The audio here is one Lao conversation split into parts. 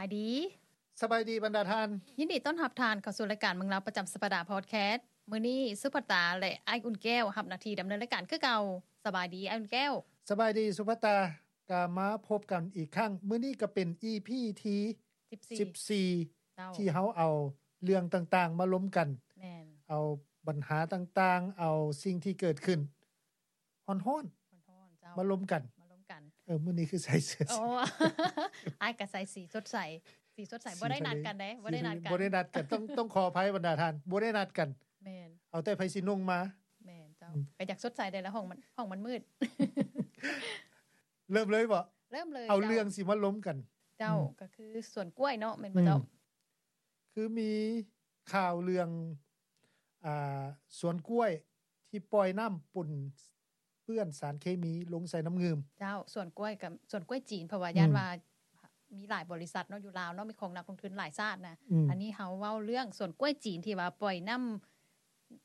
ສະບາຍດີ ສະບາຍດີບັນດາທ່ານ. ຍິນດີຕ້ອນຮັບທ່ານເຂົ້າສູ່ລາຍການເມືອງລາວປະຈຳສັບປະດາພອດແຄສ. ມື້ນີ້ສຸພັດຕາ ແລະ ອ້າຍອຸ່ນແກ້ວຮັບໜ້າທີ່ດຳເນີນລາຍການຄືເກົ່າ. ສະບາຍດີອ້າຍອຸ່ນແກ້ວ. ສະບາຍດີສຸພັດຕາ. ກະມາພົບກັນອີກຄັ້ງ. ມື້ນີ້ກະເປັນອີພີທີສິບສີ່ ເຈົ້າ ທີ່ເຮົາເອົາເລື່ອງຕ່າງໆມາລົມກັນ. ແມ່ນ. ເອົາບັນຫາຕ່າງໆ ເອົາສິ່ງທີ່ເກີດຂຶ້ນ ຮ້ອນໆ ຮ້ອນໆ ເຈົ້າ ມາລົມກັນ ມາລົມກັນ. ເອີ ມື້ນີ້ຄືໃສ່ເສື້ອ ອໍ ອ້າຍກະໃສ່ສີສົດໃສ ສີສົດໃສ. ບໍ່ໄດ້ນັດກັນເດ້ ບໍ່ໄດ້ນັດກັນ ບໍ່ໄດ້ນັດກັນ. ຕ້ອງ ຕ້ອງຂໍອະໄພບັນດາທ່ານ ບໍ່ໄດ້ນັດກັນ. ແມ່ນ. ເອົາແຕ່ໃຜຊິນຸ່ງມາ. ແມ່ນເຈົ້າ. ອືມ ກະຢາກສົດໃສແດ່ລະ ຫ້ອງມັນ ຫ້ອງມັນມືດ. ເລີ່ມເລີຍບໍ? ເລີ່ມເລີຍ. ເອົາເລື່ອງຊິມາລົມກັນ. ເຈົ້າ. ອືມ ກະຄືສວນກ້ວຍເນາະ ແມ່ນບໍ່ເຈົ້າ? ອືມ ຄືມີຂ່າວເລື່ອງ ອ່າ ສວນກ້ວຍທີ່ປ່ອຍນ້ຳປົນເປື້ອນສານເຄມີລົງໃສ່ນ້ຳງື່ມ. ເຈົ້າ. ສວນກ້ວຍກັບສວນກ້ວຍຈີນ ເພາະວ່າ ອືມ ຢ້ານວ່າມີຫຼາຍບໍລິສັດເນາະ ຢູ່ລາວເນາະ ມີຂອງນັກລົງທຶນຫຼາຍຊາດນະ. ອືມ ອັນນີ້ເຮົາເວົ້າເລື່ອງສວນກ້ວຍຈີນທີ່ວ່າປ່ອຍນ້ຳ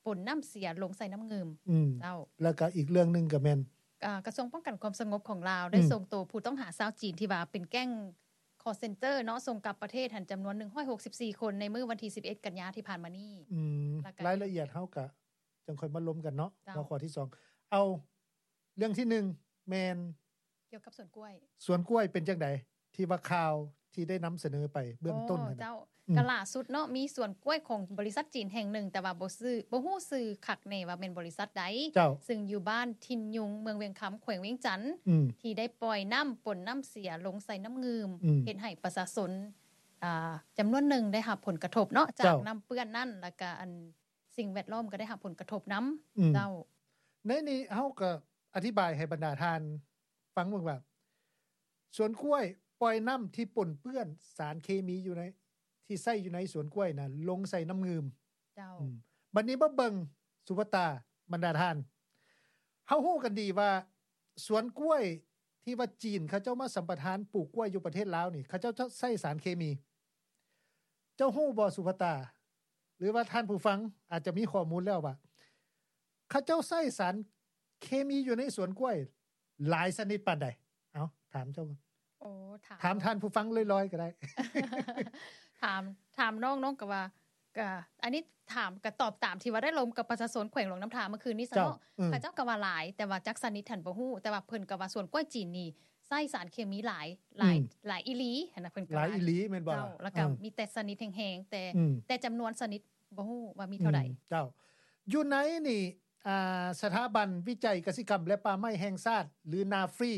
ປົນນ້ຳເສຍລົງໃສ່ນ້ຳງື່ມ. ອືມ ເຈົ້າ. ແລ້ວກະອີກເລື່ອງໜຶ່ງກະແມ່ນ ອ່າ ກະຊວງປ້ອງກັນຄວາມສະຫງົບຂອງລາວ ອືມ ໄດ້ສົ່ງໂຕຜູ້ຕ້ອງຫາຊາວຈີນທີ່ວ່າເປັນແກ້ງຄໍເຊັນເຕີເນາະ ສົ່ງກັບປະເທດຫັ້ນ ຈຳນວນໜຶ່ງຮ້ອຍຫົກສິບສີ່ຄົນ ໃນມື້ວັນທີສິບເອັດ ກັນຍາທີ່ຜ່ານມານີ້. ອືມ ແລ້ວກະລາຍລະອຽດເຮົາກະຈັ່ງຄ່ອຍມາລົມກັນເນາະ. ເຈົ້າ. ຫົວຂໍ້ທີສອງ ເອົາ ເລື່ອງທີໜຶ່ງແມ່ນ ກ່ຽວກັບສວນກ້ວຍ. ສວນກ້ວຍເປັນຈັ່ງໃດ ທີ່ວ່າຂ່າວທີ່ໄດ້ນຳສະເໜີໄປເບື້ອງຕົ້ນຫັ້ນນະ? ອໍ ເຈົ້າ. ອືມ ກະລ່າສຸດເນາະ ມີສວນກ້ວຍຂອງບໍລິສັດຈີນແຫ່ງໜຶ່ງ ແຕ່ວ່າບໍ່ຊື່ ບໍ່ຮູ້ຊື່ຄັກແນ່ວ່າແມ່ນບໍລິສັດໃດ. ເຈົ້າ. ຊຶ່ງຢູ່ບ້ານຖິ່ນຍຸງ ເມືອງວຽງຄຳ ແຂວງວຽງຈັນ ອືມ ທີ່ໄດ້ປ່ອຍນ້ຳປົນນ້ຳເສຍລົງໃສ່ນ້ຳງື່ມ ອືມ ເຮັດໃຫ້ປະຊາຊົນ ອ່າ ຈຳນວນໜຶ່ງໄດ້ຮັບຜົນກະທົບເນາະ ຈາກ ເຈົ້າ ນ້ຳເປື້ອນນັ້ນ ແລ້ວກະອັນ ສິ່ງແວດລ້ອມກະໄດ້ຮັບຜົນກະທົບນຳ. ອືມ ເຈົ້າ. ໃນນີ້ເຮົາກະອະທິບາຍໃຫ້ບັນດາທ່ານຟັງເບິ່ງວ່າ ສວນກ້ວຍປ່ອຍນ້ຳທີ່ປົນເປື້ອນສານເຄມີຢູ່ໃນ ທີ່ໃຊ້ຢູ່ໃນສວນກ້ວຍນະ ລົງໃສ່ນ້ຳງື່ມ. ເຈົ້າ. ອືມ ບັດນີ້ມາເບິ່ງ ສຸພັດຕາ ບັນດາທ່ານ ເຮົາຮູ້ກັນດີວ່າສວນກ້ວຍທີ່ວ່າຈີນເຂົາເຈົ້າມາສຳປະທານປູກກ້ວຍຢູ່ປະເທດລາວນີ້ ເຂົາເຈົ້າໃຊ້ສານເຄມີ. ເຈົ້າຮູ້ບໍ່ ສຸພັດຕາ ຫຼືວ່າທ່ານຜູ້ຟັງອາດຈະມີຂໍ້ມູນແລ້ວວ່າ ເຂົາເຈົ້າໃຊ້ສານເຄມີຢູ່ໃນສວນກ້ວຍຫຼາຍຊະນິດປານໃດ? ເອົາ ຖາມເຈົ້າ. ໂອ້ ຖາມ ຖາມທ່ານຜູ້ຟັງລອຍໆກະໄດ້. ຖາມ ຖາມນ້ອງ ນ້ອງກະວ່າ ກະ ອັນນີ້ຖາມ ກະຕອບຕາມທີ່ວ່າໄດ້ລົມກັບປະຊາຊົນແຂວງຫຼວງນ້ຳທາເມື່ອຄືນນີ້ຊະເນາະ. ເຈົ້າ. ອືມ ເຂົາເຈົ້າກະວ່າຫຼາຍ ແຕ່ວ່າຈັກຊະນິດຫັ້ນບໍ່ຮູ້ ແຕ່ວ່າເພິ່ນກະວ່າສວນກ້ວຍຈີນນີ້ ໃຊ້ສານເຄມີຫຼາຍ ຫຼາຍ ອືມ ຫຼາຍອີ່ຫຼີຫັ້ນນະ ເພິ່ນກະ ຫຼາຍອີ່ຫຼີແມ່ນບໍ່? ເຈົ້າ. ລະກະ ອືມ ມີແຕ່ຊະນິດແຮງໆ ແຕ່ ອືມ ແຕ່ຈຳນວນຊະນິດບໍ່ຮູ້ວ່າມີເທົ່າໃດ. ອືມ ເຈົ້າ. ຢູ່ໃນນີ້ ອ່າ ສະຖາບັນວິໄຈກະສິກຳ ແລະ ປ່າໄມ້ແຫ່ງຊາດ ຫຼື ນາຟຣີ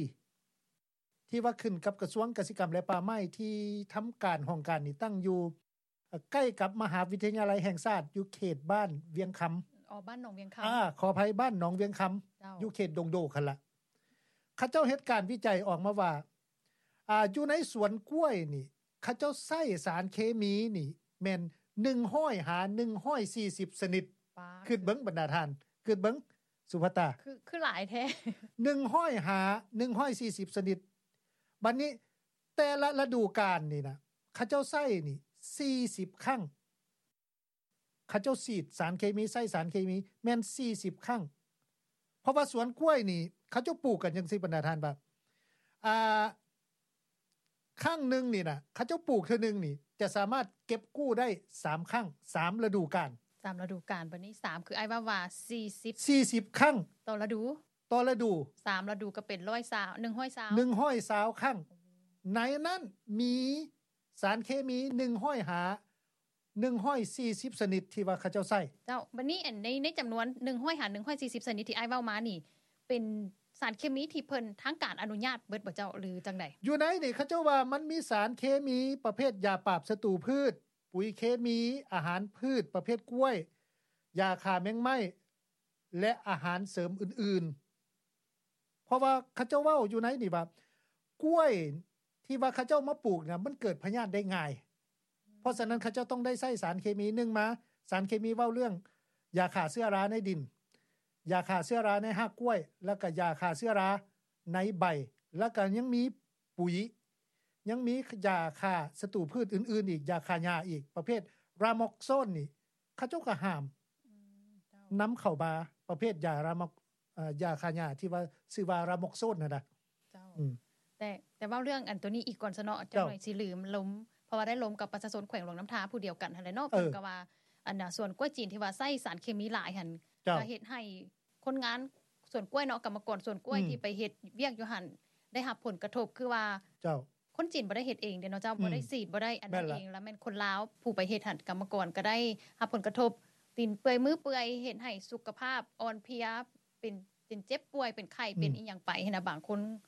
ທີ່ວ່າຂຶ້ນກັບກະຊວງກະສິກຳ ແລະ ປ່າໄມ້ ທີ່ທຳການຫ້ອງການນີ້ຕັ້ງຢູ່ ໃກ້ກັບມະຫາວິທະຍາໄລແຫ່ງຊາດ ຢູ່ເຂດບ້ານວຽງຄຳ. ອໍ ບ້ານໜອງວຽງຄຳ. ອາ ຂໍອະໄພ ບ້ານໜອງວຽງຄຳ. ເຈົ້າ. ຢູ່ເຂດດົງໂດກຫັ້ນລະ. ເຂົາເຈົ້າເຮັດການວິໄຈອອກມາວ່າ ອາ ຢູ່ໃນສວນກ້ວຍນີ້ ເຂົາເຈົ້າໃຊ້ສານເຄມີນີ້ແມ່ນໜຶ່ງຮ້ອຍຫາໜຶ່ງຮ້ອຍສີ່ສິບຊະນິດ. ປາດ. ຄິດເບິ່ງບັນດາທ່ານ ຄິດເບິ່ງ ສຸພັດຕາ ຄື ຄືຫຼາຍແທ້. ໜຶ່ງຮ້ອຍຫາໜຶ່ງຮ້ອຍສີ່ສິບຊະນິດ. ບັດນີ້ ແຕ່ລະລະດູການນີ້ນະ ເຂົາເຈົ້າໃຊ້ນີ້ສີ່ສິບຄັ້ງ. ເຂົາເຈົ້າສີດສານເຄມີ ໃຊ້ສານເຄມີແມ່ນສີ່ສິບຄັ້ງ. ເພາະວ່າສວນກ້ວຍນີ້ ເຂົາເຈົ້າປູກກັນຈັ່ງຊີ້ ບັນດາທ່ານ ວ່າ ອ່າ ຄັ້ງໜຶ່ງນີ້ນະ ເຂົາເຈົ້າປູກເທື່ອໜຶ່ງນີ້ ຈະສາມາດເກັບກູ້ໄດ້ສາມຄັ້ງ ສາມລະດູການ. ສາມລະດູການ. ບັດນີ້ສາມ ຄືອ້າຍເວົ້າວ່າສີ່ສິບ ສີ່ສິບຄັ້ງຕໍ່ລະດູ. ຕໍ່ລະດູ. ສາມລະດູກະເປັນຮ້ອຍຊາວ ໜຶ່ງຮ້ອຍຊາວ ໜຶ່ງຮ້ອຍຊາວຄັ້ງ. ໃນນັ້ນມີສານເຄມີໜຶ່ງຮ້ອຍຫາໜຶ່ງຮ້ອຍສີ່ສິບຊະນິດທີ່ວ່າເຂົາເຈົ້າໃຊ້. ເຈົ້າ. ບັດນີ້ ອັນ ໃນ ໃນຈຳນວນໜຶ່ງຮ້ອຍຫາໜຶ່ງຮ້ອຍສີ່ສິບຊະນິດທີ່ອ້າຍເວົ້າມານີ້ ເປັນສານເຄມີທີ່ເພິ່ນ ທາງການອະນຸຍາດເບິດບໍ່ເຈົ້າ ຫຼືຈັ່ງໃດ? ຢູ່ໃນນີ້ເຂົາເຈົ້າວ່າມັນມີສານເຄມີປະເພດຢາປາບສັດຕູພືດ, ປຸ໋ຍເຄມີ, ອາຫານພືດປະເພດກ້ວຍ, ຢາຂ້າແມງໄມ້ ແລະ ອາຫານເສີມອື່ນໆ. ເພາະວ່າເຂົາເຈົ້າເວົ້າຢູ່ໃນນີ້ວ່າ ກ້ວຍທີ່ວ່າເຂົາເຈົ້າມາປູກນະ ມັນເກີດພະຍາດໄດ້ງ່າຍ. ເພາະສະນັ້ນເຂົາເຈົ້າຕ້ອງໄດ້ໃຊ້ສານເຄມີ ໜຶ່ງມາ ສານເຄມີເວົ້າເລື່ອງຢາຂ້າເຊື້ອລາໃນດິນ, ຢາຂ້າເຊື້ອລາໃນຮາກກ້ວຍ ແລ້ວກະຢາຂ້າເຊື້ອລາໃນໃບ ແລ້ວກະຍັງມີປຸ໋ຍ ຍັງມີຢາຂ້າສັດຕູພືດອື່ນໆອີກ, ຢາຂ້າຫຍ້າອີກ ປະເພດຣາມົກໂຊນນີ້ ເຂົາເຈົ້າກະຫ້າມ ອືມ ເຈົ້າ ນຳເຂົ້າມາ ປະເພດຢາຣາມົກ ເອີ ຢາຂ້າຫຍ້າທີ່ວ່າຊື່ວ່າຣາມົກໂຊນຫັ້ນນະ. ເຈົ້າ. ອືມ ແຕ່ ແຕ່ເວົ້າເລື່ອງອັນໂຕນີ້ອີກກ່ອນຊະເນາະ ເຈົ້າ ຈັກໜ້ອຍຊິລືມລົມ ເພ ະວ່າໄດ້ລົມກັບປະຊາຊົນແຂວງຫຼວງນ້ຳທາຜູ້ດຽວກັນຫັ້ນແຫຼະເນາະ. ເອີ ເພິ່ນກໍວ່າ ອັນນ່າ ສວນກ້ວຍຈີນທີ່ວ່າໃຊ້ສານເຄມີຫຼາຍຫັ້ນ ເຈົ້າ ກໍເຮັດໃຫ້ຄົນງານສວນກ້ວຍເນາະ ກຳມະກອນສວນກ້ວຍ ອືມ ທີ່ໄປເຮັດວຽກຢູ່ຫັ້ນ ໄດ້ຮັບຜົນກະທົບ ຄືວ່າ ເຈົ້າ ຄົນຈີນບໍ່ໄດ້ເຮັດເອງເດ້ເນາະເຈົ້າ ອືມ ບໍ່ໄດ້ສີດ ບໍ່ໄດ້ອັນນັ້ນເອງ ແລ້ວແມ່ນຄົນລາວຜູ້ໄປເຮັດຫັ້ນ ກຳມະກອນກໍໄດ້ຮັບຜົນກະທົບ ຕີນເປື່ອຍມືເປື່ອຍ ເຮັດໃຫ້ສຸຂະພາບອ່ອນເພຍ ເປັນ ເປັນເຈັບປ່ວຍ ເປັນໄຂ້ ອືມ ເປັນອີ່ຫຍັງໄປຫັ້ນນະ ບາງຄົນ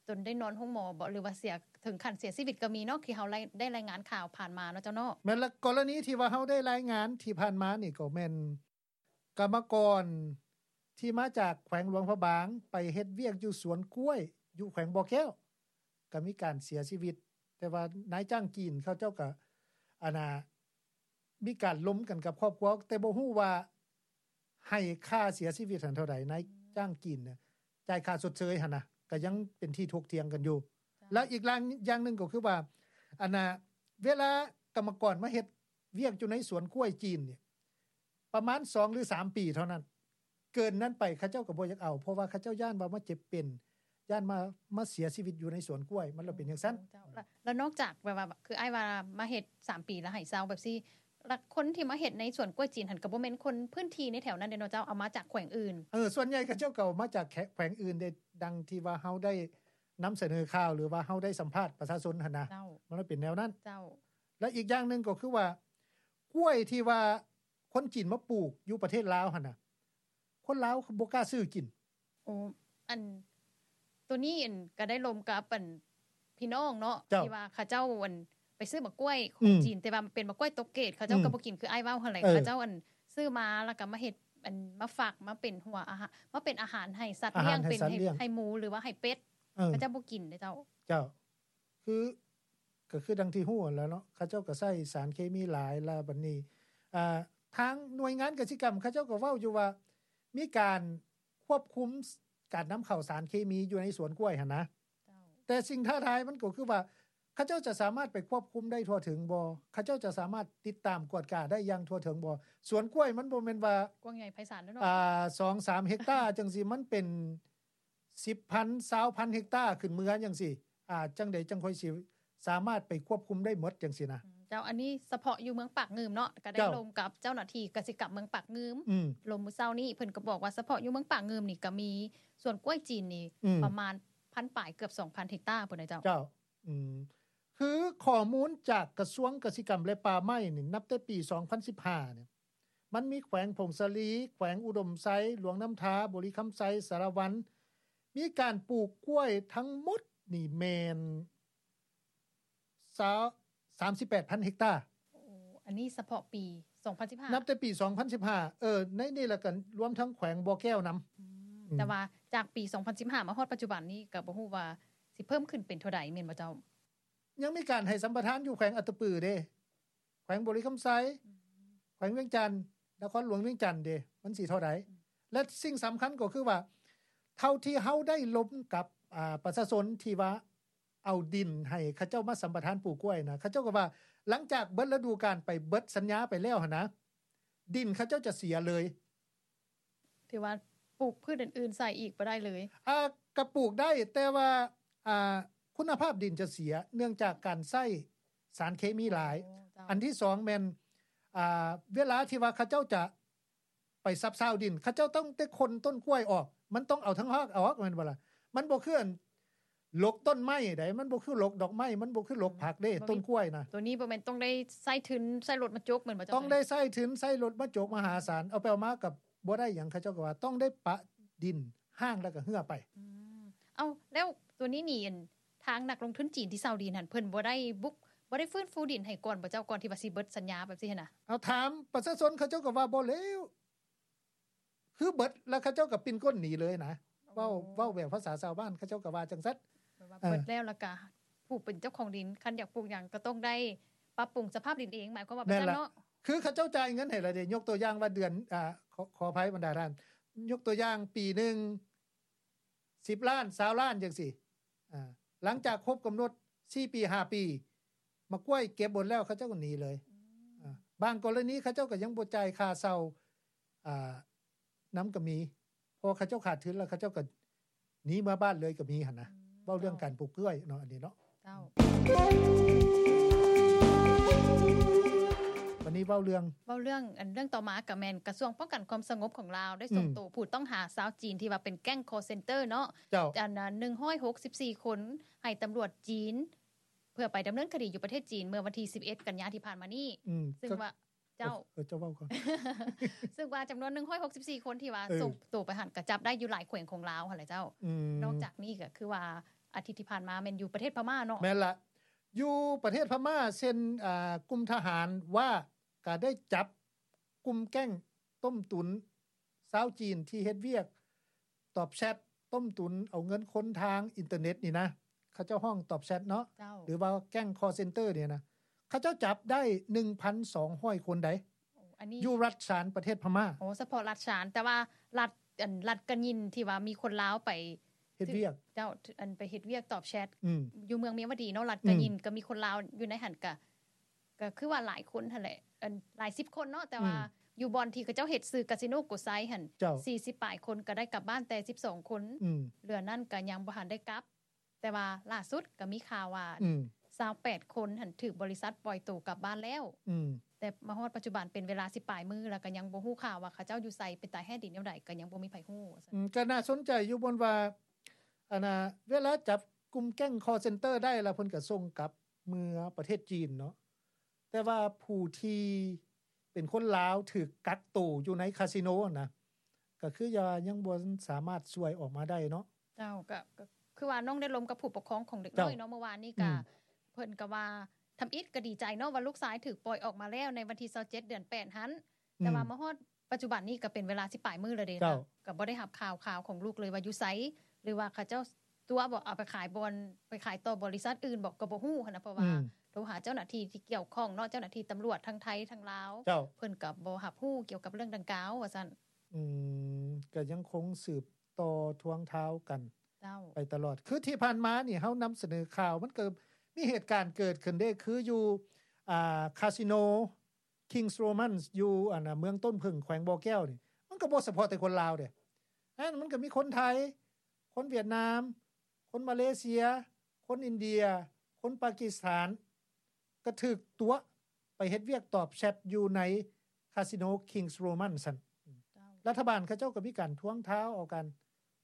ຈົນໄດ້ນອນໂຮງໝໍບໍ ຫຼືວ່າເສຍ ເຖິງຂັ້ນເສຍຊີວິດກໍມີເນາະ ທີ່ເຮົາໄດ້ ໄດ້ລາຍງານຂ່າວຜ່ານມາເນາະເຈົ້າເນາະ. ແມ່ນລະ ກໍລະນີທີ່ວ່າເຮົາໄດ້ລາຍງານທີ່ຜ່ານມານີ້ ກໍແມ່ນກຳມະກອນທີ່ມາຈາກແຂວງຫຼວງພະບາງ ໄປເຮັດວຽກຢູ່ສວນກ້ວຍຢູ່ແຂວງບໍ່ແກ້ວ ກໍມີການເສຍຊີວິດ ແຕ່ວ່ານາຍຈ້າງຈີນເຂົາເຈົ້າກໍ ອັນນ່າ ມີການລົມກັນກັບຄອບຄົວ ແຕ່ບໍ່ຮູ້ວ່າໃຫ້ຄ່າເສຍຊີວິດຫັ້ນເທົ່າໃດ ນາຍຈ້າງຈີນນະ ຈ່າຍຄ່າຊົດເຊີຍຫັ້ນນະ ກໍຍັງເປັນທີ່ຖົກຖຽງກັນຢູ່. ເຈົ້າ ແລ້ວອີກຢ່າງ ຢ່າງໜຶ່ງກໍຄືວ່າ ອັນນ່າ ເວລາກຳມະກອນມາເຮັດວຽກຢູ່ໃນສວນກ້ວຍຈີນນີ້ ປະມານສອງ ຫຼື ສາມປີເທົ່ານັ້ນ ເກີນນັ້ນໄປເຂົາເຈົ້າກໍບໍ່ຢາກເອົາ ເພາະວ່າເຂົາເຈົ້າຢ້ານວ່າມາເຈັບເປັນ ຢ້ານມາ ມາເສຍຊີວິດຢູ່ໃນສວນກ້ວຍ ມັນລະເປັນຈັ່ງຊັ້ນ. ເຈົ້າ ລະ ລະນອກຈາກແບບວ່າ ຄືອ້າຍວ່າມາເຮັດສາມປີລະໃຫ້ເຊົາແບບຊີ້ ລະຄົນທີ່ມາເຮັດໃນສວນກ້ວຍຈີນຫັ້ນ ກໍບໍ່ແມ່ນຄົນພື້ນທີ່ໃນແຖວນັ້ນເດ້ເນາະເຈົ້າ ເອົາມາຈາກແຂວງອື່ນ. ເອີ ສ່ວນໃຫຍ່ເຂົາເຈົ້າກໍເອົາມາຈາກແຂວງອື່ນເດ້ ດັ່ງທີ່ວ່າເຮົາໄດ້ນຳສະເໜີຂ່າວ ຫຼືວ່າເຮົາໄດ້ສຳພາດປະຊາຊົນຫັ້ນນະ. ເຈົ້າ ມັນເປັນແນວນັ້ນ. ເຈົ້າ ແລະ ອີກຢ່າງໜຶ່ງກໍຄືວ່າ ກ້ວຍທີ່ວ່າຄົນຈີນມາປູກຢູ່ປະເທດລາວຫັ້ນນະ ຄົນລາວບໍ່ກ້າຊື້ກິນ. ໂອ້ ອັນ ໂຕນີ້ ອັນ ກໍໄດ້ລົມກັບ ອັນ ພີ່ນ້ອງເນາະ ເຈົ້າ ທີ່ວ່າເຂົາເຈົ້າ ອັນ ໄປຊື້ໝາກກ້ວຍຂອງ ອືມ ຈີນ ແຕ່ວ່າມັນເປັນໝາກກ້ວຍຕົກເກດ ເຂົາເຈົ້າ ອືມ ກໍບໍ່ກິນ ຄືອ້າຍເວົ້າຫັ້ນແຫຼະ. ເອີ ເຂົາເຈົ້າ ອັນ ຊື້ມາແລ້ວກໍມາເຮັດ ອັນ ມາຝັກ ມາເປັນຫົວອາຫານ ມາເປັນອາຫານໃຫ້ສັດລ້ຽງ ອາຫານໃຫ້ສັດລ້ຽງ ເປັນໃຫ້ ໃຫ້ໝູ ຫຼືວ່າໃຫ້ເປັດ. ເອີ ເຂົາເຈົ້າບໍ່ກິນເດ້ເຈົ້າ. ເຈົ້າ ຄື ກໍຄືດັ່ງທີ່ຮູ້ຫັ້ນແຫຼະເນາະ ເຂົາເຈົ້າກໍໃຊ້ສານເຄມີຫຼາຍ ແລ້ວບັດນີ້ ອ່າ ທາງໜ່ວຍງານກະສິກຳເຂົາເຈົ້າກໍເວົ້າຢູ່ວ່າ ມີການຄວບຄຸມການນຳເຂົ້າສານເຄມີຢູ່ໃນສວນກ້ວຍຫັ້ນນະ. ເຈົ້າ ແຕ່ສິ່ງທ້າທາຍມັນກໍຄືວ່າ ເຂົາເຈົ້າຈະສາມາດໄປຄວບຄຸມໄດ້ທົ່ວເຖິງບໍ່? ເຂົາເຈົ້າຈະສາມາດຕິດຕາມກວດກາໄດ້ຢ່າງທົ່ວເຖິງບໍ່? ສວນກ້ວຍມັນບໍ່ແມ່ນວ່າ ກວ້າງໃຫຍ່ໄພສານເນາະ ອ່າ ສອງສາມເຮັກຕາຈັ່ງຊີ້ ມັນເປັນ ສິບພັນ ຊາວພັນເຮັກຕາຂຶ້ນເມືອຈັ່ງຊີ້ ອ່າ ຈັ່ງໃດຈັ່ງຄ່ອຍຊິສາມາດໄປຄວບຄຸມໄດ້ໝົດຈັ່ງຊີ້ນະ. ອືມ ເຈົ້າ ອັນນີ້ສະເພາະຢູ່ເມືອງປາກງື່ມເນາະ ກໍໄດ້ ເຈົ້າ ລົມກັບເຈົ້າໜ້າທີ່ກະສິກຳເມືອງປາກງື່ມ ອືມ ລົມມື້ເຊົ້ານີ້ ເພິ່ນກໍບອກວ່າສະເພາະຢູ່ເມືອງປາກງື່ມນີ້ກໍມີສວນກ້ວຍຈີນນີ້ ອືມ ປະມານພັນປາຍ ເກືອບສອງພັນເຮັກຕາພຸ້ນນະເຈົ້າ. ເຈົ້າ ອືມ ຄືຂໍ້ມູນຈາກກະຊວງກະສິກຳ ແລະ ປ່າໄມ້ນີ້ ນັບແຕ່ປີສອງພັນສິບຫ້ານີ້ ມັນມີແຂວງຜົ້ງສາລີ, ແຂວງອຸດົມໄຊ, ຫຼວງນ້ຳທາ, ບໍລິຄຳໄຊ, ສາລະວັນ ມີການປູກກ້ວຍທັງໝົດນີ້ແມ່ນ ຊາວ ສາມສິບແປດພັນເຮັກຕາ. ໂອ້ ອັນນີ້ສະເພາະປີສອງພັນສິບຫ້າ ນັບແຕ່ປີສອງພັນສິບຫ້າ ເອີ ໃນນີ້ລະກະລວມທັງແຂວງບໍ່ແກ້ວນຳ. ອືມ ອືມ ແຕ່ວ່າຈາກປີສອງພັນສິບຫ້າມາຮອດປັດຈຸບັນນີ້ ກະບໍ່ຮູ້ວ່າຊິເພີ່ມຂຶ້ນເປັນເທົ່າໃດ ແມ່ນບໍ່ເຈົ້າ? ຍັງມີການໃຫ້ສຳປະທານຢູ່ແຂວງອັດຕະປືເດ້ ແຂວງບໍລິຄຳໄຊ ອືມ ແຂວງວຽງຈັນ ນະຄອນຫຼວງວຽງຈັນເດ້ ມັນຊິເທົ່າໃດ? ອືມ ແລະ ສິ່ງສຳຄັນກໍຄືວ່າ ເທົ່າທີ່ເຮົາໄດ້ລົມກັບ ອ່າ ປະຊາຊົນທີ່ວ່າເອົາດິນໃຫ້ເຂົາເຈົ້າມາສຳປະທານປູກກ້ວຍນະ ເຂົາເຈົ້າກໍວ່າ ຫຼັງຈາກເບິດລະດູການໄປ ເບິດສັນຍາໄປແລ້ວຫັ້ນນະ ດິນເຂົາເຈົ້າຈະເສຍເລີຍ. ຖືວ່າປູກພືດອື່ນໆໃສ່ອີກບໍ່ໄດ້ເລີຍ? ອ່າ ກະປູກໄດ້ ແຕ່ວ່າ ອ່າ ຄຸນນະພາບດິນຈະເສຍ ເນື່ອງຈາກການໃຊ້ສານເຄມີຫຼາຍ. ໂອ້ ເຈົ້າ. ອັນທີສອງແມ່ນ ອ່າ ເວລາທີ່ວ່າເຂົາເຈົ້າຈະໄປສັບຊາວດິນ ເຂົາເຈົ້າຕ້ອງໄດ້ຄົນຕົ້ນກ້ວຍອອກ ມັນຕ້ອງເອົາທັງຮາກອອກ ແມ່ນບໍ່ລະ? ມັນບໍ່ຄືອັນ ຫຼົກຕົ້ນໄມ້ໃດ ມັນບໍ່ຄືຫຼົກດອກໄມ້ ມັນບໍ່ຄືຫຼົກຜັກເດ້ ອືມ ຕົ້ນກ້ວຍນະ. ໂຕນີ້ບໍ່ແມ່ນຕ້ອງໄດ້ໃຊ້ທຶນ ໃຊ້ລົດມາຈົກແມ່ນບໍ່ເຈົ້າ? ຕ້ອງໄດ້ໃຊ້ທຶນ ໃຊ້ລົດມາຈົກມະຫາສານ ເອົາໄປເອົາມາກໍບໍ່ໄດ້ຫຍັງ ເຂົາເຈົ້າກໍວ່າຕ້ອງໄດ້ປະດິນຮ້າງແລ້ວກໍເຮືອໄປ. ອືມ ເອົ້າ ແລ້ວໂຕນີ້ນີ້ ອັນ ທາງນັກລົງທຶນຈີນທີ່ເຊົ່າດິນຫັ້ນ ເພິ່ນບໍ່ໄດ້ບຸກ ບໍ່ໄດ້ຟື້ນຟູດິນໃຫ້ກ່ອນບໍ່ເຈົ້າ? ກ່ອນທີ່ວ່າຊິເບິດສັນຍາແບບຊີ້ຫັ້ນນະ? ເອົາ ຖາມປະຊາຊົນ ເຂົາເຈົ້າກໍວ່າບໍ່ແລ້ວ ຄືເບິດແລ້ວເຂົາເຈົ້າກໍປິ່ນກົ້ນໜີເລີຍນະ. ໂອ້ ເວົ້າ ເວົ້າແບບພາສາຊາວບ້ານ ເຂົາເຈົ້າກໍວ່າຈັ່ງຊັ້ນ ແບບວ່າ ເອີ ເບິດແລ້ວ ແລ້ວກໍຜູ້ເປັນເຈົ້າຂອງດິນ ຄັນຢາກປູກຫຍັງກໍຕ້ອງໄດ້ປັບປຸງສະພາບດິນເອງ ໝາຍຄວາມວ່າ ແມ່ນລະ ແບບນັ້ນເນາະ. ຄືເຂົາເຈົ້າຈ່າຍເງິນໃຫ້ລະເດ້ ຍົກຕົວຢ່າງວ່າເດືອນ ອ່າ ຂໍ ຂໍອະໄພບັນດາທ່ານ ຍົກຕົວຢ່າງປີໜຶ່ງ ສິບລ້ານ ຊາວລ້ານຈັ່ງຊີ້ ອ່າ ຫຼັງຈາກຄົບກຳນົດສີ່ປີ ຫ້າປີ ໝາກກ້ວຍເກັບໝົດແລ້ວ ເຂົາເຈົ້າກໍໜີເລີຍ. ອືມ ອ່າ ບາງກໍລະນີເຂົາເຈົ້າກໍຍັງບໍ່ຈ່າຍຄ່າເຊົ່າ ອ່າ ນຳກໍມີ ເພາະເຂົາເຈົ້າຂາດທຶນແລ້ວ ເຂົາເຈົ້າກໍໜີເມືອບ້ານເລີຍກໍມີຫັ້ນນະ. ອືມ ເວົ້າເລື່ອງການປູກກ້ວຍເນາະ ອັນນີ້ເນາະ. ເຈົ້າ. ນີ້ເວົ້າເລື່ອງ ເວົ້າເລື່ອງ ອັນເລື່ອງຕໍ່ມາກໍແມ່ນກະຊວງປ້ອງກັນຄວາມສະຫງົບຂອງລາວໄດ້ສົ່ງ ອືມ ໂຕຜູ້ຕ້ອງຫາຊາວຈີນທີ່ວ່າເປັນແກ້ງຄໍເຊັນເຕີເນາະ ເຈົ້າ ອັນ ໜຶ່ງຮ້ອຍຫົກສິບສີ່ຄົນ ໃຫ້ຕຳຫຼວດຈີນ ເພື່ອໄປດຳເນີນຄະດີຢູ່ປະເທດຈີນ ເມື່ອວັນທີສິບເອັດ ກັນຍາທີ່ຜ່ານມານີ້ ອືມ ຊຶ່ງວ່າ ເຈົ້າ ເອີ ເຈົ້າເວົ້າກ່ອນ ຊຶ່ງວ່າຈຳນວນໜຶ່ງຮ້ອຍຫົກສິບສີ່ຄົນທີ່ວ່າ ເອີ ສົ່ງໂຕໄປຫັ້ນ ກໍຈັບໄດ້ຢູ່ຫຼາຍແຂວງຂອງລາວຫັ້ນແຫຼະເຈົ້າ ອືມ ນອກຈາກນີ້ກໍຄືວ່າອາທິດທີ່ຜ່ານມາແມ່ນຢູ່ປະເທດພະມ້າເນາະ ແມ່ນລະ ຢູ່ປະເທດພະມ້າ ເຊັ່ນ ອ່າ ກຸ່ມທະຫານວ່າ ກໍໄດ້ຈັບກຸ່ມແກ້ງຕົ້ມຕຸນຊາວຈີນທີ່ເຮັດວຽກຕອບແຊັດ ຕົ້ມຕຸນເອົາເງິນຄົນທາງອິນເຕີເນັດນີ້ນະ ເຂົາເຈົ້າຮ້ອງຕອບແຊັດເນາະ ເຈົ້າ ຫຼືວ່າແກ້ງຄໍເຊັນເຕີນີ້ນະ ເຂົາເຈົ້າຈັບໄດ້ໜຶ່ງພັນສອງຮ້ອຍຄົນໃດ໋ ໂອ້ ອັນນີ້ຢູ່ລັດຊານປະເທດພະມ້າ ໂອ້ ສະເພາະລັດຊານ ແຕ່ວ່າລັດ ອັນ ລັດກະຍິນທີ່ວ່າມີຄົນລາວໄປເຮັດວຽກ ເຈົ້າ ອັນໄປເຮັດວຽກຕອບແຊັດ ອືມ ຢູ່ເມືອງເມຍວະດີເນາະ ລັດກະຍິນ ອືມ ກໍມີຄົນລາວຢູ່ໃນຫັ້ນ ກະ ກໍຄືວ່າຫຼາຍຄົນຫັ້ນແຫຼະ ອັນ ຫຼາຍສິບຄົນເນາະ ແຕ່ວ່າ ອືມ ຢູ່ບ່ອນທີ່ເຂົາເຈົ້າເຮັດຊື່ກາສິໂນໂກໄຊຫັ້ນ ເຈົ້າ ສີ່ສິບປາຍຄົນ ກໍໄດ້ກັບບ້ານແຕ່ສິບສອງຄົນ ອືມ ເຫຼືອນັ້ນກໍຍັງບໍ່ທັນໄດ້ກັບ ແຕ່ວ່າລ່າສຸດກໍມີຂ່າວວ່າ ອືມ ຊາວແປດຄົນຫັ້ນຖືກບໍລິສັດປ່ອຍໂຕກັບບ້ານແລ້ວ ອືມ ແຕ່ມາຮອດປັດຈຸບັນເປັນເວລາສິບປາຍມື້ ແລ້ວກໍຍັງບໍ່ຮູ້ຂ່າວວ່າເຂົາເຈົ້າຢູ່ໃສ ເປັນຕາຍແຮດດີແນວໃດ ກໍຍັງບໍ່ມີໃຜຮູ້ ອືມ ກໍໜ້າສົນໃຈຢູ່ບ່ອນວ່າ ອັນນ່າ ເວລາຈັບກຸ່ມແກ້ງຄໍເຊັນເຕີໄດ້ແລ້ວ ເພິ່ນກໍສົ່ງກັບເມືອປະເທດຈີນເນາະ ແຕ່ວ່າຜູ້ທີ່ເປັນຄົນລາວຖືກກັກໂຕຢູ່ໃນຄາສິໂນຫັ້ນນະ ກໍຄືວ່າຍັງບໍ່ສາມາດຊ່ວຍອອກມາໄດ້ເນາະ ເຈົ້າ ກໍ ກໍຄືວ່ານ້ອງໄດ້ລົມກັບຜູ້ປົກຄອງຂອງເດັກນ້ອຍເນາະ ເຈົ້າ ເມື່ອວານນີ້ ອືມ ກໍເພິ່ນກໍວ່າ ທຳອິດກໍດີໃຈເນາະ ວ່າລູກຊາຍຖືກປ່ອຍອອກມາແລ້ວໃນວັນທີຊາວເຈັດ ເດືອນແປດຫັ້ນ ອືມ ແຕ່ວ່າມາຮອດປັດຈຸບັນນີ້ກໍເປັນເວລາສິບປາຍມື້ແລ້ວເດ້ ເຈົ້າ ກໍບໍ່ໄດ້ຮັບຂ່າວຄາວຂອງລູກເລີຍວ່າຢູ່ໃສ ຫຼືວ່າເຂົາເຈົ້າຕົວະບໍ່ ເອົາໄປຂາຍບ່ອນ ໄປຂາຍຕໍ່ບໍລິສັດອື່ນບໍ່ ກໍບໍ່ຮູ້ຫັ້ນນະ ເພາະວ່າ ອືມ ໂທຫາເຈົ້າໜ້າທີ່ທີ່ກ່ຽວຂ້ອງເນາະ ເຈົ້າໜ້າທີ່ຕຳຫຼວດທັງໄທທັງລາວ ເຈົ້າ ເພິ່ນກໍບໍ່ຮັບຮູ້ກ່ຽວກັບເລື່ອງດັ່ງກ່າວວ່າຊັ້ນ ອືມ ກໍຍັງຄົງສືບຕໍ່ທວງທາວກັນ ເຈົ້າ ໄປຕະຫຼອດ ຄືທີ່ຜ່ານມານີ້ເຮົານຳສະເໜີຂ່າວ ມັນກໍມີເຫດການເກີດຂຶ້ນເດ້ ຄືຢູ່ ອ່າ ຄາສິໂນ ຄິງສ໌ໂຣມັນສ໌ ຢູ່ ອັນນ່າ ເມືອງຕົ້ນເຜິ້ງ ແຂວງບໍ່ແກ້ວນີ້ ມັນກໍບໍ່ສະເພາະແຕ່ຄົນລາວເດ້ ນັ້ນມັນກໍມີຄົນໄທ ຄົນຫວຽດນາມ ຄົນມາເລເຊຍ ຄົນອິນເດຍ ຄົນປາກິສຖານ ກໍຖືກຕົວະໄປເຮັດວຽກຕອບແຊັດຢູ່ໃນຄາສິໂນ ຄິງສ໌ໂຣມັນສ໌ ຊັ້ນ ເຈົ້າ ລັດຖະບານເຂົາເຈົ້າກໍມີການທວງທາວເອົາການ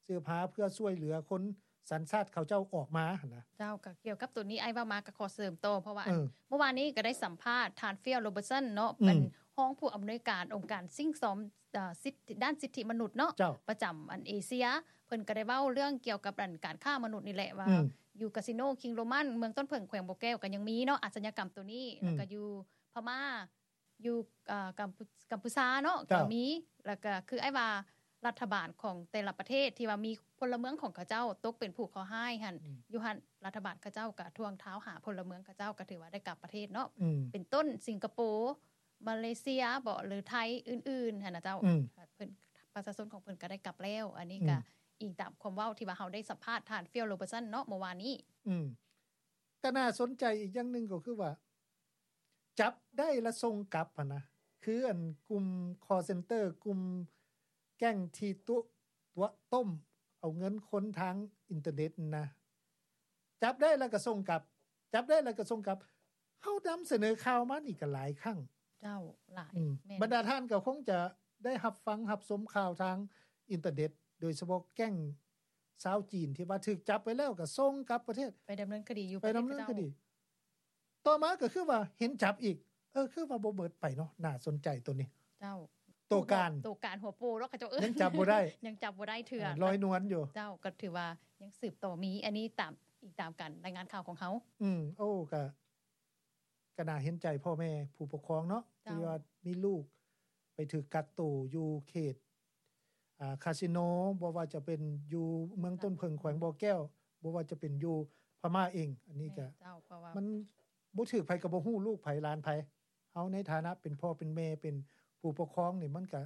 ສືບຫາເພື່ອຊ່ວຍເຫຼືອຄົນສັນຊາດເຂົາເຈົ້າອອກມາຫັ້ນນະ ເຈົ້າ ກໍກ່ຽວກັບໂຕນີ້ອ້າຍເວົ້າມາກໍຂໍເສີມຕໍ່ ເພາະວ່າ ເອີ ອັນ ເມື່ອວານນີ້ກໍໄດ້ສຳພາດທ່ານ ຟິລ ໂຣເບີດສັນ ເນາະ ອືມ ເປັນຮອງຜູ້ອຳນວຍການອົງການສິ່ງຊອມ ເອີ ສິດ ດ້ານສິດທິມະນຸດເນາະ ເຈົ້າ ປະຈຳອັນເອເຊຍ ເພິ່ນກໍໄດ້ເວົ້າເລື່ອງກ່ຽວກັບອັນການຄ້າມະນຸດນີ້ແຫຼະ ວ່າ ອືມ ຢູ່ກາສິໂນ ຄິງສ໌ໂຣມັນສ໌ ເມືອງຕົ້ນເຜິ້ງ ແຂວງບໍ່ແກ້ວ ກໍຍັງມີເນາະ ອາດສະຍາກຳໂຕນີ້ ອືມ ແລ້ວກໍຢູ່ພະມ້າ ຢູ່ ເອີ ກຳ ກຳພູຊາເນາະ ເຈົ້າ ກໍມີ ແລ້ວກໍຄືອ້າຍວ່າ ລັດຖະບານຂອງແຕ່ລະປະເທດທີ່ວ່າມີພົນລະເມືອງຂອງເຂົາເຈົ້າຕົກເປັນຜູ້ເຄາະຮ້າຍຫັ້ນ ອືມ ຢູ່ຫັ້ນລັດຖະບານເຂົາເຈົ້າກໍທວງທາວຫາພົນລະເມືອງເຂົາເຈົ້າ ກໍຖືວ່າໄດ້ກັບປະເທດເນາະ ອືມ ເປັນຕົ້ນສິງກະໂປ ມາເລເຊຍບໍ ຫຼືໄທອື່ນໆຫັ້ນນະເຈົ້າ ອືມ ເພິ່ນ ປະຊາຊົນຂອງເພິ່ນກໍໄດ້ກັບແລ້ວ ອັນນີ້ກໍ ອືມ ອີງຕາມຄວາມເວົ້າທີ່ວ່າເຮົາໄດ້ສຳພາດທ່ານ ຟິລ ໂຣເບີດສັນ ເນາະ ເມື່ອວານນີ້ ອືມ ກໍໜ້າສົນໃຈອີກຢ່າງໜຶ່ງກໍຄືວ່າ ຈັບໄດ້ລະສົ່ງກັບຫັ້ນນະ ຄືອັນກຸ່ມຄໍເຊັນເຕີ ກຸ່ມແກ້ງທີ່ຕຸ ຕົວະຕົ້ມເອົາເງິນຄົນທາງອິນເຕີເນັດນະ ຈັບໄດ້ລະກໍສົ່ງກັບ ຈັບໄດ້ລະກໍສົ່ງກັບ ເຮົານຳສະເໜີຂ່າວມານີ້ກໍຫຼາຍຄັ້ງ ເຈົ້າ ຫຼາຍ ອືມ ແມ່ນ ບັນດາທ່ານກໍຄົງຈະໄດ້ຮັບຟັງຮັບຊົມຂ່າວທາງອິນເຕີເນັດ ໂດຍສະເພາະແກ້ງຊາວຈີນທີ່ວ່າຖືກຈັບໄປແລ້ວກໍສົ່ງກັບປະເທດ ໄປດຳເນີນຄະດີຢູ່ ໄປດຳເນີນຄະດີ ປະເທດເຂົາເຈົ້າ ຕໍ່ມາກໍຄືວ່າເຫັນຈັບອີກ ເອີ ຄືວ່າບໍ່ເໝິດໄປເນາະ ໜ້າສົນໃຈໂຕນີ້ ເຈົ້າ ໂຕການ ໂຕການຫົວໂປເນາະ ເຂົາເຈົ້າເອີ້ນ ຍັງຈັບບໍ່ໄດ້ ຍັງຈັບບໍ່ໄດ້ເທື່ອ ເອີ ລອຍນວນຢູ່ ເຈົ້າ ກໍຖືວ່າຍັງສືບຕໍ່ມີ ອັນນີ້ຕາມ ອີງຕາມການລາຍງານຂ່າວຂອງເຮົາ ອືມ ໂອ້ ກະ ກໍໜ້າເຫັນໃຈພໍ່ແມ່ຜູ້ປົກຄອງເນາະ ເຈົ້າ ທີ່ວ່າມີລູກໄປຖືກກັກໂຕຢູ່ເຂດ ອ່າ ຄາສິໂນ ບໍ່ວ່າຈະເປັນຢູ່ເມືອງຕົ້ນເຜິ້ງ ແຂວງບໍ່ແກ້ວ ບໍ່ວ່າຈະເປັນຢູ່ພະມ້າເອງ ອັນນີ້ກໍ ແມ່ນເຈົ້າ ເພາະວ່າມັນບໍ່ຖືກໃຜກໍບໍ່ຮູ້ ລູກໃຜຫຼານໃຜ ເຮົາໃນຖານະເປັນພໍ່ເປັນແມ່ ເປັນຜູ້ປົກຄອງນີ້ ມັນກໍ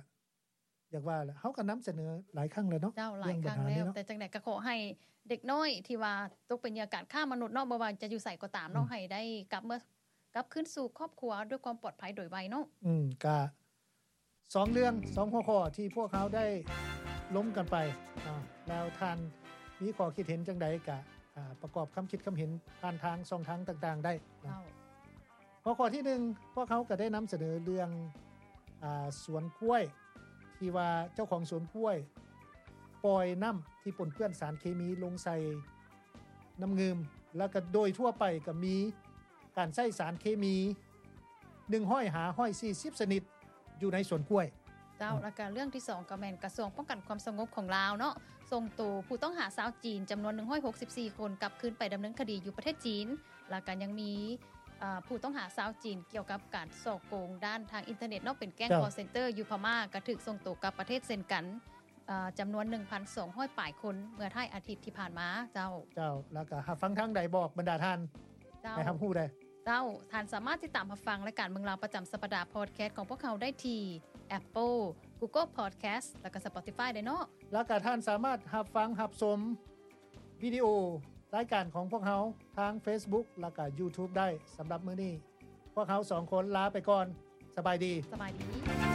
ຢາກວ່າແຫຼະ ເຮົາກໍນຳສະເໜີຫຼາຍຄັ້ງແລ້ວເນາະ ເຈົ້າ ຫຼາຍຄັ້ງແລ້ວ ເລື່ອງບັນຫານີ້ເນາະ ແຕ່ຈັ່ງໃດກໍຂໍໃຫ້ເດັກນ້ອຍທີ່ວ່າຕົກເປັນເຫຍື່ອການຄ້າມະນຸດເນາະ ບໍ່ວ່າຈະຢູ່ໃສກໍຕາມເນາະ ອືມ ໃຫ້ໄດ້ກັບເມືອ ກັບຄືນສູ່ຄອບຄົວດ້ວຍຄວາມປອດໄພໂດຍໄວເນາະ ອືມ ກະສອງເລື່ອງ ສອງຫົວຂໍ້ທີ່ພວກເຮົາໄດ້ລົມກັນໄປ ອາ ແລ້ວທ່ານມີຂໍ້ຄິດເຫັນຈັ່ງໃດ ກະ ອາ ປະກອບຄຳຄິດຄຳເຫັນຜ່ານທາງຊ່ອງທາງຕ່າງໆໄດ້ເນາະ ເຈົ້າ. ຫົວຂໍ້ທີໜຶ່ງ ພວກເຮົາກໍໄດ້ນຳສະເໜີເລື່ອງ ອາ ສວນກ້ວຍ ທີ່ວ່າເຈົ້າຂອງສວນກ້ວຍປ່ອຍນ້ຳທີ່ປົນເປື້ອນສານເຄມີລົງໃສ່ນ້ຳງື່ມ ແລ້ວກໍໂດຍທົ່ວໄປກໍມີການໃຊ້ສານເຄມີ ໜຶ່ງຮ້ອຍຫາຮ້ອຍສີ່ສິບຊະນິດຢູ່ໃນສວນກ້ວຍ. ເຈົ້າ ແລ້ວກໍເລື່ອງທີສອງ ກໍແມ່ນກະຊວງປ້ອງກັນຄວາມສະຫງົບຂອງລາວເນາະ ສົ່ງໂຕຜູ້ຕ້ອງຫາຊາວຈີນຈຳນວນໜຶ່ງຮ້ອຍຫົກສິບສີ່ຄົນ ກັບຄືນໄປດຳເນີນຄະດີຢູ່ປະເທດຈີນ. ແລ້ວກໍຍັງມີ ອາ ຜູ້ຕ້ອງຫາຊາວຈີນກ່ຽວກັບການສໍ້ໂກງດ້ານທາງອິນເຕີເນັດເນາະ ເປັນແກ້ງ ເຈົ້າ ຄໍເຊັນເຕີຢູ່ພະມ້າ ກໍຖືກສົ່ງໂຕກັບປະເທດເຊັ່ນກັນ ອາ ຈຳນວນໜຶ່ງພັນສອງຮ້ອຍປາຍຄົນ ເມື່ອທ້າຍອາທິດທີ່ຜ່ານມາ. ເຈົ້າ ເຈົ້າ ແລ້ວກໍຮັບຟັງທາງໃດ ບອກບັນດາທ່ານ ເຈົ້າ ໃຫ້ຮັບຮູ້ແດ່. ເຈົ້າ ທ່ານສາມາດຕິດຕາມຮັບຟັງລາຍການເມືອງລາວປະຈຳສັບປະດາ ພອດແຄສຂອງພວກເຮົາໄດ້ທີ່ Apple, Google Podcast ແລ້ວກໍ Spotify ໄດ້ເນາະ. ແລ້ວກໍທ່ານສາມາດຮັບຟັງຮັບຊົມວິດີໂອລາຍການຂອງພວກເຮົາທາງ Facebook ແລ້ວກໍ YouTube ໄດ້. ສຳລັບມື້ນີ້ ພວກເຮົາສອງຄົນລາໄປກ່ອນ. ສະບາຍດີ. ສະບາຍດີ.